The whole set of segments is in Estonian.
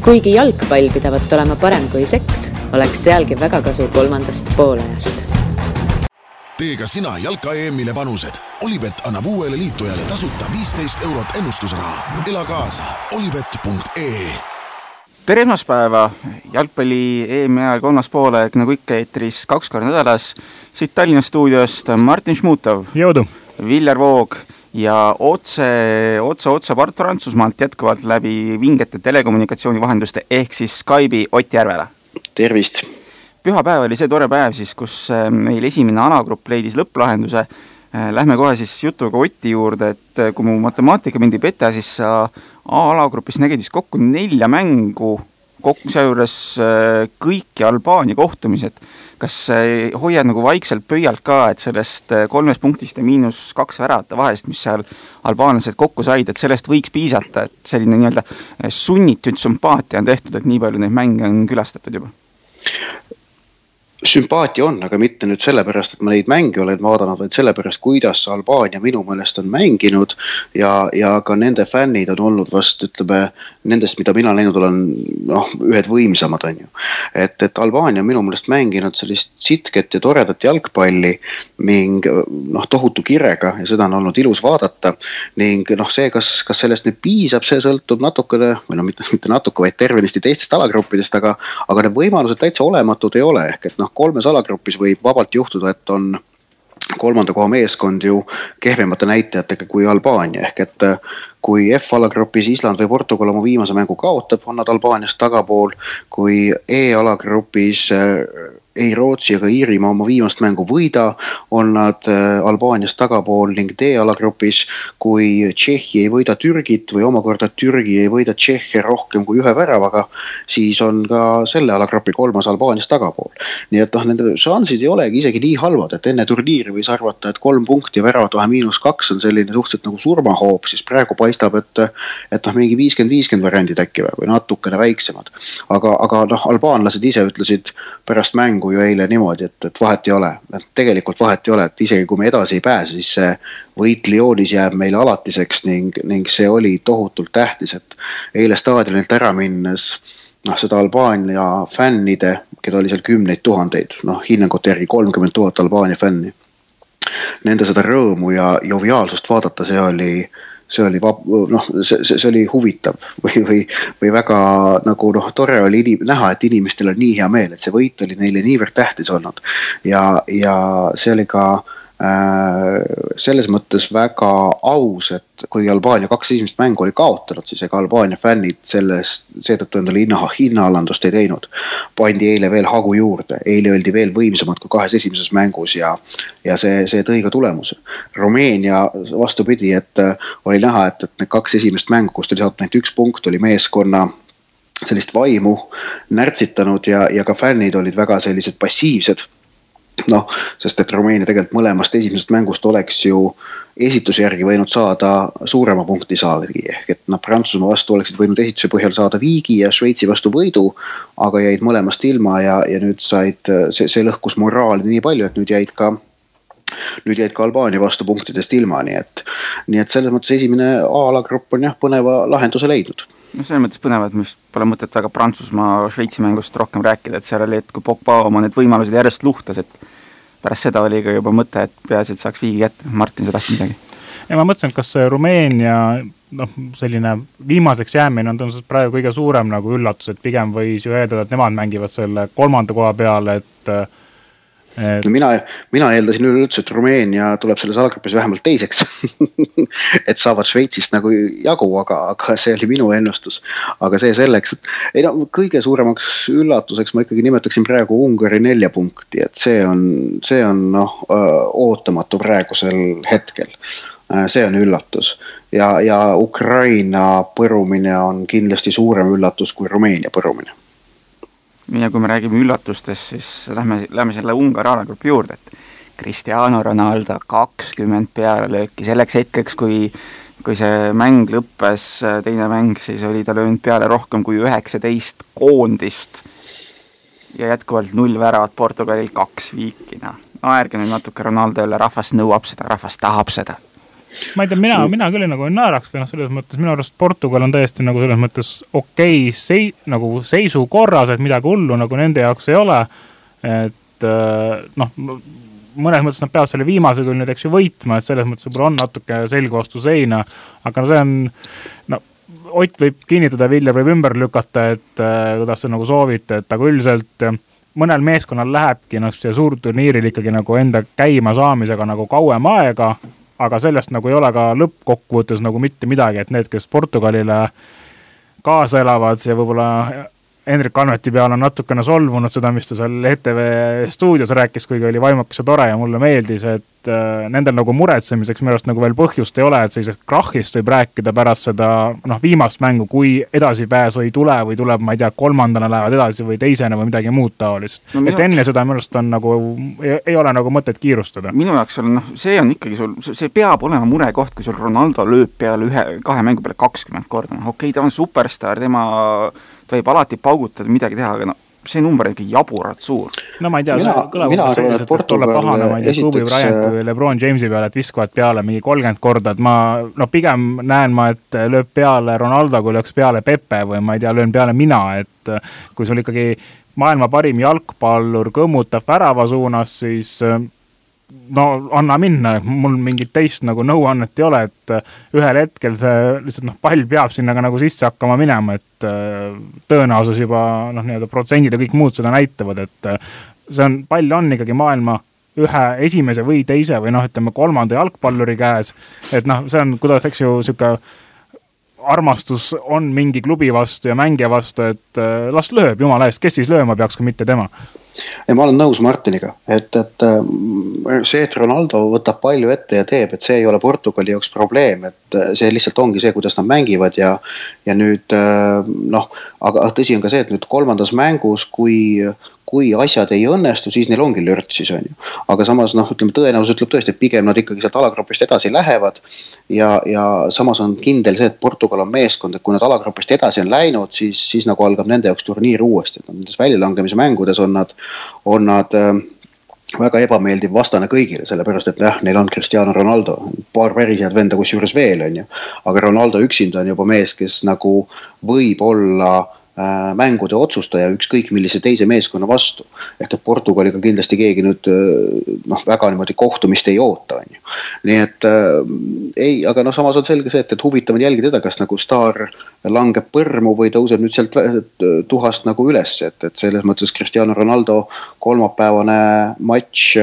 Kuigi jalgpall pidavat olema parem kui seks, oleks sealgi väga kasu kolmandast poolajast. Tee ka sina jalka EM-ile panused. Olipet annab uuele liitujale tasuta 15 € ennustusraha. Ela kaasa olipet.ee. Tere esmaspäeva, jalgpalli EM-i ajal kolmas poolaeg nagu ikka eetris 2 korda nädalas. Siit Tallinna stuudiost Martin Šmutov, Jõudu. Viljar Voog ja otse Prantsusmaalt jätkuvalt läbi vingete telekommunikatsiooni vahenduste ehk siis Skype'i Ott Järvela. Tervist! Pühapäev oli see tore päev siis, kus meil esimene alagrupp leidis lõpplahenduse. Lähme kohe siis jutuga Otti juurde, et kui mu matemaatika mind ei peta, siis sa A-alagrupis nägid siis kokku 4 mängu, sealjuures kõiki Albaania kohtumised. Kas hoiad nagu vaikselt pöialt ka, et sellest 3 punktist ja -2 väravate vahest, mis seal albaanlased kokku said, et sellest võiks piisata, et selline nii-öelda sunnitud sümpaatia on tehtud, et nii palju neid mänge on külastatud juba? Sümpaatia on, aga mitte nüüd sellepärast, et ma neid mänge olen vaadanud, vaid sellepärast, kuidas Albaania minu meelest on mänginud ja ka nende fännid on olnud vast, ütleme, nendest, mida mina näinud olen, ühed võimsamad on ju. Et Albaania on minu meelest mänginud sellist sitket ja toredat jalgpalli ning tohutu kirega ja seda on olnud ilus vaadata ning see, kas sellest nüüd piisab, see sõltub natukene, või mitte natuke, vaid tervenisti teistest alagruppidest, aga need võimalused täitsa olematud ei ole, ehk et 3 alagrupis võib vabalt juhtuda, et on 3. koha meeskond ju kehvemate näitajatega kui Albaania, ehk et kui F-alagrupis Island või Portugal oma viimase mängu kaotab, on nad Albaaniast tagapool, kui E-alagrupis ei Rootsi ega Iirimaa oma viimast mängu võida, on nad Albaaniast tagapool ning D-alagrupis, kui Tšehhi ei võida Türgit või omakorda Türgi ei võida Tšehhe rohkem kui 1 väravaga, siis on ka selle alagrupi 3. Albaaniast tagapool. Nii et nende šansid ei olegi isegi nii halvad, et enne turniiri võis arvata, et 3 punkti ja väravat vahe -2 on selline suhteliselt nagu surmahoop, siis praegu paistab, et mingi 50-50 variandid äkki või natukene väiksemad. Aga albaanlased ise ütlesid pärast mängu ju eile niimoodi, et vahet ei ole. Tegelikult vahet ei ole, et isegi kui me edasi ei pääse, siis see võit Lyonis jääb meile alatiseks ning see oli tohutult tähtis, et eile staadionilt ära minnes seda Albaania fännide, keda oli seal 10 000, hinnangute järgi 30 000 Albaania fänni. Nende seda rõõmu ja joviaalsust vaadata, see oli huvitav või väga nagu tore oli näha, et inimestel on nii hea meel, et see võit oli neile niivõrd tähtis olnud ja see oli ka selles mõttes väga aus, et kui Albaania 2 esimest mängu oli kaotanud, siis ega Albaania fännid seetõttu endale hinnaalandust ei teinud. Pandi eile veel hagu juurde, eile oldi veel võimsamad kui 2 esimeses mängus ja see tõi ka tulemuse. Rumeenia vastupidi, et oli näha, et need 2 esimest mängu, kus oli saanud näit 1 punkt, oli meeskonna sellist vaimu närtsitanud ja ka fännid olid väga sellised passiivsed. Sest et Rumeenia tegelikult mõlemast esimesest mängust oleks ju esituse järgi võinud saada suurema punkti saagi, ehk et Prantsusmaa vastu oleksid võinud esituse põhjal saada viigi ja Šveitsi vastu võidu, aga jäid mõlemast ilma ja nüüd said, see lõhkus moraali nii palju, et nüüd jäid ka Albaania vastu punktidest ilma, nii et selles mõttes esimene A-alagrupp on põneva lahenduse leidnud. Selles mõttes põnevad, mis pole mõtet väga Prantsusmaa Šveitsi mängust rohkem rääkida, et seal oli, et kui Pogba oma need võimalused järjest luhtas, et pärast seda oli ka juba mõte, et peaasi, et saaks viigi kätte. Martin, sa tahtsid midagi? Ja ma mõtlesin, et kas Rumeenia selline viimaseks jäämine on tõenäoliselt praegu kõige suurem nagu üllatus, et pigem võis ju eeldada, et nemad mängivad selle 3. koha peale, et Mina eeldasin üleüldse, et Rumeenia tuleb selles alagrupis vähemalt teiseks, et saavad Šveitsist nagu jagu, aga see oli minu ennustus. Aga see selleks, et kõige suuremaks üllatuseks ma ikkagi nimetaksin praegu Ungari 4 punkti, et see on ootamatu praegusel hetkel. See on üllatus ja Ukraina põrumine on kindlasti suurem üllatus kui Rumeenia põrumine. Ja kui me räägime üllatustest, siis lähme selle Ungari alagrupi juurde, et Cristiano Ronaldo 20 pealelööki selleks hetkeks, kui see mäng lõppes, teine mäng, siis oli ta löönud peale rohkem kui 19 koondist ja jätkuvalt 0 väravat Portugalil 2 viikina. Ärge nüüd natuke Ronaldo jälle, rahvas nõuab seda, rahvas tahab seda. Ma ei tea, mina küll nagu ei naeraks või selles mõttes, minu arust Portugal on täiesti nagu selles mõttes okei nagu seisukorras, et midagi hullu nagu nende jaoks ei ole, et mõnes mõttes nad peavad selle viimase küll nüüd eks ju võitma, et selles mõttes võib-olla on natuke selgu vastu seina, aga see on, Ott võib kinnitada, Vilja võib ümber lükata, et kuidas see nagu soovite, et aga üldiselt mõnel meeskonnal lähebki see suurturniiril ikkagi nagu enda käima saamisega nagu kauem aega, aga sellest nagu ei ole ka lõppkokkuvõttes nagu mitte midagi, et need, kes Portugalile kaasa elavad ja võib-olla Hendrik Anveti peal on natukene solvunud seda, mis ta seal ETV stuudios rääkis, kuigi oli vaimukas ja tore ja mulle meeldis, et nendel nagu muretsemiseks minu arust nagu veel põhjust ei ole, et sellisest krahhist võib rääkida pärast seda viimast mängu, kui edasipääsu ei tule või tuleb, ma ei tea, kolmandana lähevad edasi või teisena või midagi muud taolist. Et enne seda minu arust on nagu, ei ole nagu mõtet kiirustada. Minu jaoks on, see on ikkagi sul, see peab olema murekoht, kui sul Ronaldo lööb peale kahe mängu peale 20 korda. Okei, ta on superstar, ta võib alati paugutada midagi teha, aga see number on ikka jaburad suur. No ma ei tea, kõlab selliselt, et tulla pahana, ma ei tea, Kobe Bryant või LeBron Jamesi peale, et viskavad peale mingi 30 korda, et ma pigem näen ma, et lööb peale Ronaldo, kui lööks peale Pepe või ma ei tea, löön peale mina, et kui sul ikkagi maailma parim jalgpallur kõmmutab värava suunas, siis anna minna, mul mingit teist nagu nõuannet ei ole, et ühel hetkel see lihtsalt pall peab sinna ka nagu sisse hakkama minema, et tõenäosus juba nii-öelda protsendid ja kõik muud seda näitavad, et see on, pall on ikkagi maailma ühe esimese või teise või ütleme kolmanda jalgpalluri käes, et see on, kuidas eks ju siuke armastus on mingi klubi vastu ja mängija vastu, et las lööb, jumala eest, kes siis lööma peaks, kui mitte tema. Ja ma olen nõus Martiniga, et see, et Ronaldo võtab palju ette ja teeb, et see ei ole Portugali jaoks probleem, et see lihtsalt ongi see, kuidas nad mängivad ja nüüd aga tõsi on ka see, et nüüd kolmandas mängus, kui asjad ei õnnestu, siis neil ongi lört siis on ju. Aga samas ütleme, tõenäosus ütleb tõesti, et pigem nad ikkagi sealt alagrupist edasi lähevad ja samas on kindel see, et Portugal on meeskond, et kui nad alagrupist edasi on läinud, siis nagu algab nende jaoks turniir uuesti. Nendes väljalangemise mängudes on nad väga ebameeldiv vastane kõigile, sellepärast, et neil on Cristiano Ronaldo, paar päris head venda kus juures veel on ju, aga Ronaldo üksinda on juba mees, kes nagu võib olla mängude otsustaja ükskõik millise teise meeskonna vastu. Ehk et Portugaliga kindlasti keegi nüüd väga niimoodi kohtumist ei oota. On ju. Nii et aga samas on selge see, et huvitav on jälgida teda, kas nagu staar langeb põrmu või tõuseb nüüd sealt tuhast nagu üles. Et selles mõttes Cristiano Ronaldo kolmapäevane matš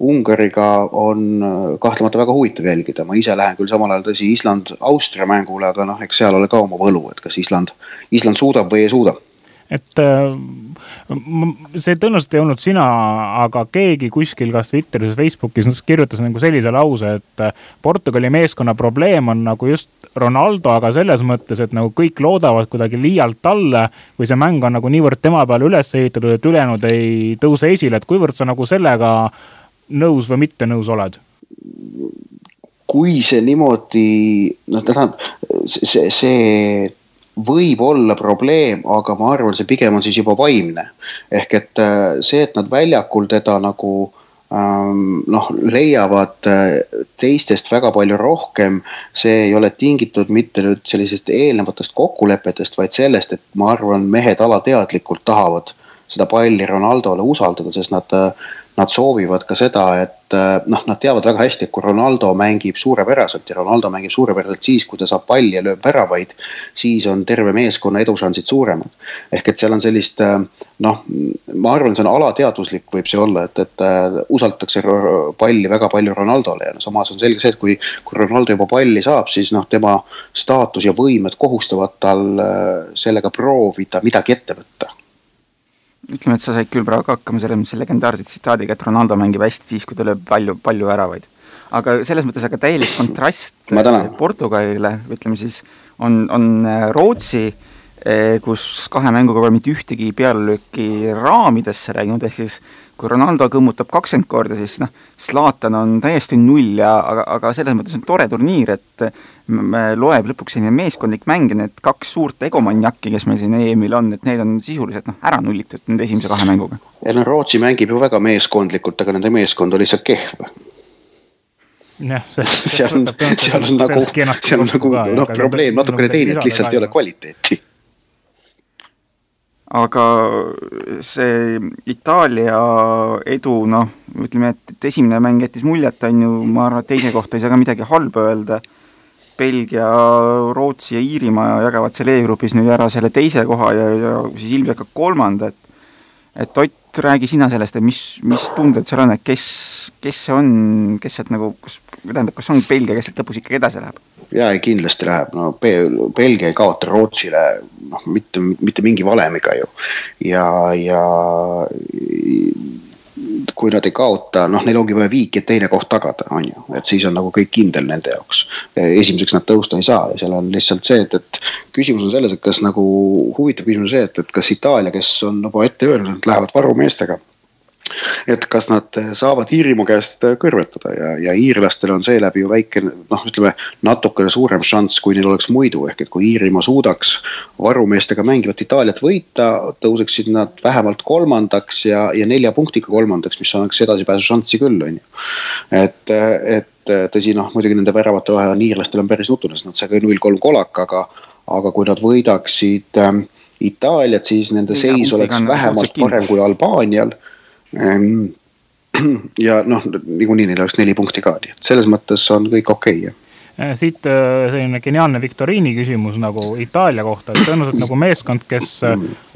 Ungariga on kahtlemata väga huvitav jälgida. Ma ise lähen küll samal ajal tõsi Island-Austria mängule, aga eks seal ole ka oma võlu, et kas Island suudab või ei suuda. Et see tõenäoliselt ei olnud sina, aga keegi kuskil kas Twitteris, Facebookis kirjutas nagu sellise lause, et Portugali meeskonna probleem on nagu just Ronaldo, aga selles mõttes, et nagu kõik loodavad kuidagi liialt talle või see mäng on nagu niivõrd tema peale üles ehitatud, et ülejäänud ei tõuse esile, et kuivõrd sa nagu sellega nõus või mitte nõus oled? Kui see niimoodi, see võib olla probleem, aga ma arvan, see pigem on siis juba vaimne. Ehk et see, et nad väljakul teda nagu leiavad teistest väga palju rohkem, see ei ole tingitud mitte nüüd sellisest eelnevatest kokkulepetest, vaid sellest, et ma arvan, mehed alateadlikult tahavad seda palli Ronaldole usaldada, sest nad soovivad ka seda, et nad teavad väga hästi, et kui Ronaldo mängib suurepäraselt ja Ronaldo mängib suurepäraselt siis, kui ta saab palli ja lööb väravaid, siis on terve meeskonna edušansid suuremad. Ehk et seal on sellist, ma arvan, see on alateadvuslik võib see olla, et usaldatakse palli väga palju Ronaldole ja samas on selge see, et kui Ronaldo juba palli saab, siis tema staatus ja võimed kohustavad tal sellega proovida midagi ette võtta. Ütleme, et sa said küll praegu hakkama selle legendaarse tsitaadiga, et Ronaldo mängib hästi siis, kui ta lööb palju väravaid. Aga selles mõttes aga täielik kontrast Portugalile, ütleme siis, on Rootsi, kus kahe mänguga pole mitte ühtegi pealelööki raamidesse rääginud, ehk siis kui Ronaldo kõmmutab 20 korda, siis Zlatan on täiesti null, aga selles mõttes on tore turniir, et loeb lõpuks selline meeskondlik mäng ja need kaks suurt egomanjakki, kes meil siin EM-il on, et need on sisuliselt ära nullitud nende esimese kahe mänguga. Ja Rootsi mängib ju väga meeskondlikult, aga nende meeskond oli lihtsalt kehv. seal on nagu probleem natukene teine, et lihtsalt ei ole kvaliteeti. Aga see Itaalia edu, ütleme, et esimene mäng jättis muljet, on ju, ma arvan, et teise kohta ei saa ka midagi halba öelda. Belgia, Rootsi ja Iirimaa jagavad selle E-grupis nüüd ära selle teise koha ja siis ilmselt ka kolmanda, et Ott, räägi sina sellest, et mis tunded seal on, et kes see on, kes sealt nagu, kas on Belgia, kes sealt lõpus ikkagi edasi läheb? Jaa, kindlasti läheb, Belgia ei kaota Rootsile mitte mingi valemiga ju ja kui nad ei kaota, neil ongi vaja viiki, et teine koht tagada, on ju, et siis on nagu kõik kindel nende jaoks. Esimeseks nad tõusta ei saa ja seal on lihtsalt see, et küsimus on selles, et kas nagu huvitav küsimus see, et kas Itaalia, kes on juba ette öelnud, lähevad varumeestega, et kas nad saavad Iirimaa käest kõrvetada ja iirlastel on seeläbi ju väike, ütleme, natukene suurem šanss, kui neil oleks muidu, ehk et kui Iirimaa suudaks varumeestega mängivat Itaaliat võita, tõuseksid nad vähemalt kolmandaks ja 4 punktiga kolmandaks, mis annaks edasipääsu šanssi küll, on ju. Et tõsi, muidugi nende väravate vahe on iirlastel on päris nutunes, nad sai 0-3 kolak, aga kui nad võidaksid Itaaliat, siis nende seis oleks vähemalt parem kui Albaanial. Ja niikuinii neil oleks 4 punkti ka, nii et selles mõttes on kõik okei. Siit selline geniaalne viktoriini küsimus nagu Itaalia kohta, et tõenäoliselt nagu meeskond, kes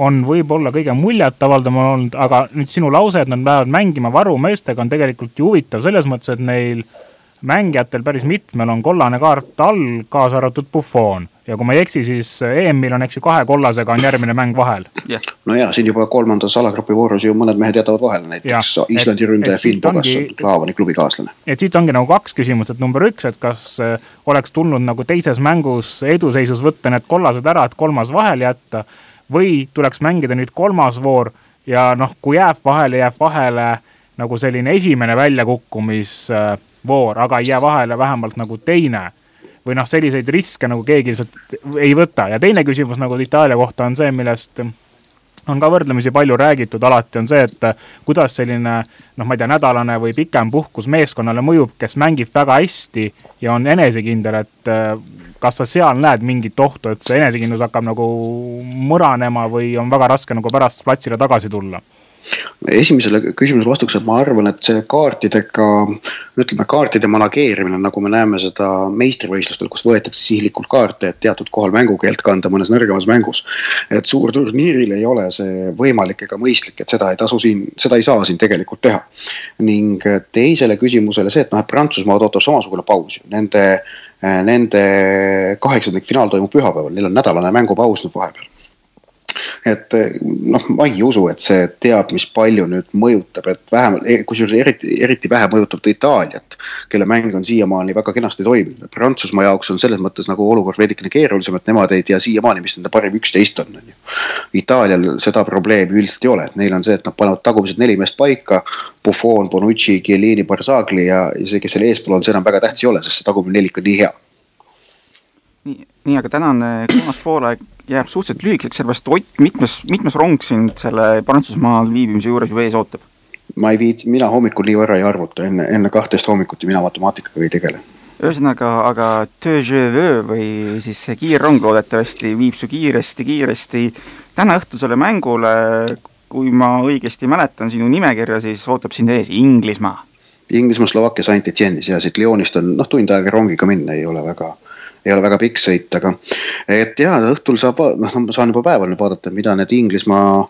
on võib-olla kõige muljet avaldama olnud, aga nüüd sinu lause, et nad lähevad mängima varumeestega on tegelikult ju huvitav selles mõttes, et neil mängijatel päris mitmel on kollane kaart all, kaasa arvatud Buffon. Ja kui ma ei eksi, siis EM-il on 2 kollasega on järgmine mäng vahel. No ja, siin juba 3. alagrupi voorus ju mõned mehed jätavad vahele, näiteks Islandi ründaja Finn Bogasson, Klaavani klubi kaaslane. Et siit ongi nagu 2 küsimust, et number 1, et kas oleks tulnud nagu teises mängus eduseisus võtta need kollased ära, et 3. vahel jätta, või tuleks mängida nüüd 3. voor ja kui jääb vahele nagu selline esimene väljakukkumisvoor, aga ei jää vahele vähemalt nagu teine, või selliseid riske nagu keegi lihtsalt ei võta. Ja teine küsimus nagu Itaalia kohta on see, millest on ka võrdlemisi palju räägitud, alati on see, et kuidas selline, ma ei tea, nädalane või pikem puhkus meeskonnale mõjub, kes mängib väga hästi ja on enesekindel, et kas sa seal näed mingit ohtu, et see enesekindlus hakkab nagu mõranema või on väga raske nagu pärast platsile tagasi tulla? Esimesele küsimusele vastuks, et ma arvan, et see kaartide manageerimine, nagu me näeme seda meistrivõistlustel, kus võetakse sihlikult kaarte, et teatud kohal mängukeelt kanda mõnes nõrgemas mängus, et suur turniiril ei ole see võimalik ega mõistlik, et seda ei saa siin tegelikult teha. Ning teisele küsimusele see, et Prantsusmaad ootab samasugune paus. Nende 8. finaal toimub pühapäeval, neil on nädalane mängupaus nüüd vahepeal. Et ma ei usu, et see teab, mis palju nüüd mõjutab, et vähemalt, kusjuures eriti vähe mõjutab Itaaliat, kelle mäng on siiamaani väga kenasti toiminud. Prantsusmaa jaoks on selles mõttes nagu olukord veidikene keerulisem, et nemad ei tea siiamaani, mis nende parim 11 on. Itaalial seda probleemi üldiselt ei ole, et neil on see, et nad panevad tagumised 4 meest paika, Buffon, Bonucci, Chiellini, Barzagli ja see, kes selle eespool on, see enam väga tähtis ei ole, sest see tagumine 4 on nii hea. Nii, aga tänane 3. poolaeg jääb suhteliselt lühikeseks, sellepärast Ott, mitmes rong sind selle Prantsusmaal viibimise juures ju ees ootab? Mina hommikul nii võrra ei arvuta, enne 12 hommikuti mina matemaatikaga ei tegele. Ühesõnaga, aga deux je veux või siis see kiirrong loodetavasti viib su kiiresti. Täna õhtusele mängule, kui ma õigesti mäletan sinu nimekirja, siis ootab sind ees Inglismaa. Slovakkia Saint-Etienne'is ja siit Lyonist on tund aega rongiga minna, ei ole väga pikk sõit, aga et õhtul saan juba päeval nüüd vaadata, mida need Inglismaa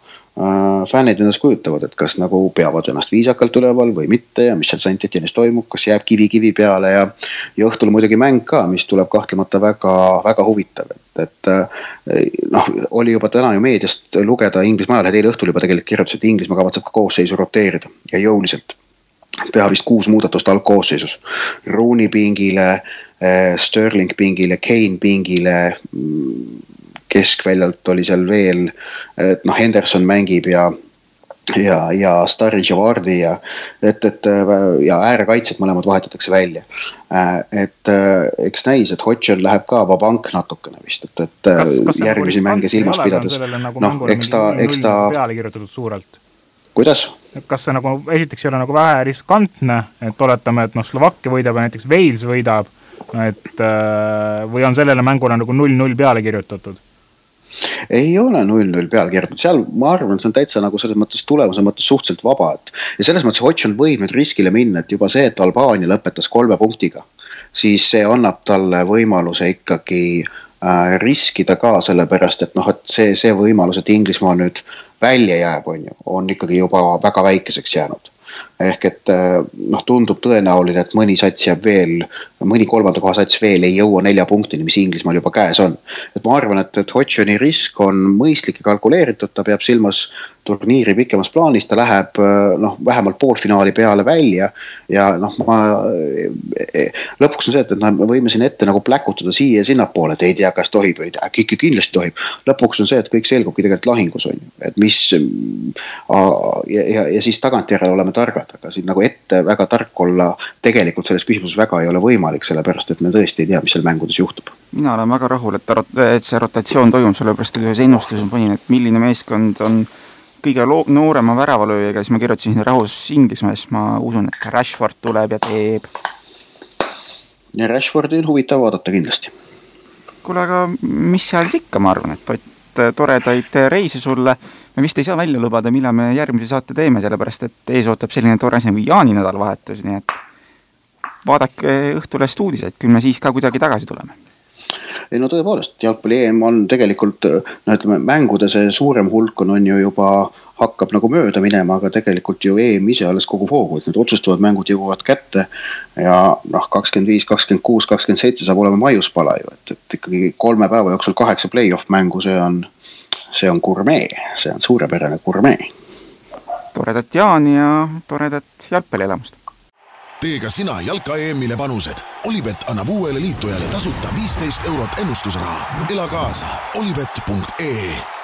fännid ennast kujutavad, et kas nagu peavad ennast viisakalt üleval või mitte ja mis seal Saint-Etienne'is toimub, kas jääb kivi peale ja õhtul muidugi mäng ka, mis tuleb kahtlemata väga, väga huvitav, et oli juba täna ju meediast lugeda Inglismaa ajal, eile õhtul juba tegelikult kirjutas, et Inglismaa kavatseb ka koosseisu roteerida ja jõuliselt teha vist 6 muudatust algkoosseisus. Rooney pingile, Sterling pingile, Kane pingile, keskväljalt oli seal veel, Henderson mängib ja Sturridge ja Vardy ja äärekaitset mõlemad vahetatakse välja. Et eks näis, et Hodgson läheb ka vabank natukene vist, et järgmisi mänge silmas pidades. Eks ta peale kirjutatud suurelt? Kuidas? Kas see nagu esiteks ei ole nagu vähe riskantne, et oletame, et Slovakkia võidab ja näiteks Wales võidab, et või on sellele mängule nagu 0-0 peale kirjutatud? Ei ole 0-0 peale kirjutatud, seal ma arvan, see on täitsa nagu selles mõttes tulemuse mõttes suhteliselt vaba, ja selles mõttes Hotšon võib nüüd riskile minna, et juba see, et Albaania lõpetas 3 punktiga, siis see annab talle võimaluse ikkagi riskida ka sellepärast, et et see võimalus, et Inglismaa nüüd välja jääb, on ikkagi juba väga väikeseks jäänud. Ehk et tundub tõenäoline, et mõni sats jääb veel, mõni 3. koha sats veel ei jõua 4 punktini, mis Inglismaal juba käes on. Et ma arvan, et Hotšoni risk on mõistlik ja kalkuleeritud, ta peab silmas turniiri pikemas plaanis, ta läheb vähemalt poolfinaali peale välja ja lõpuks on see, et me võime siin ette nagu pläkutada siia ja sinnapoole, et ei tea, kas tohib või äkki kindlasti tohib. Lõpuks on see, et kõik selgubki tegelikult lahingus on, et mis ja siis tagantjärele oleme targad, aga siin nagu ette väga tark olla tegelikult selles küsimuses väga ei ole võimalik, sellepärast et me tõesti ei tea, mis seal mängudes juhtub. Mina olen väga rahul, et see rotatsioon toimub, sellepärast et ühes ennustuses panin, et milline meeskond on kõige noorema väravalööjaga, siis ma kirjutasin rahus Inglismaes, ma usun, et Rashford tuleb ja teeb. Ja Rashfordi on huvitav vaadata kindlasti. Kuule, aga mis seal siis ikka, ma arvan, et toredaid reise sulle. Me vist ei saa välja lubada, millal me järgmise saate teeme, sellepärast et ees ootab selline tore nagu Jaani nädalavahetus, nii et vaadake Õhtulest uudiseid, küll me siis ka kuidagi tagasi tuleme. Ei tõepoolest, jalgpalli EM on tegelikult, mängude see suurem hulk on ju juba hakkab nagu mööda minema, aga tegelikult ju EM ise alles kogu hoogu, et need otsustavad mängud jõuavad kätte ja 25, 26, 27 saab olema maiuspala ju, et ikkagi 3 päeva jooksul 8 play-off mängu, see on gurmee, see on suurepärane gurmee. Toredat Jaani ja toredat jalgpallielamust. Tee ka sina jalka EM-ile panused. Olibet annab uuele liitujale tasuta 15 € ennustusraha. Ela kaasa olibet.ee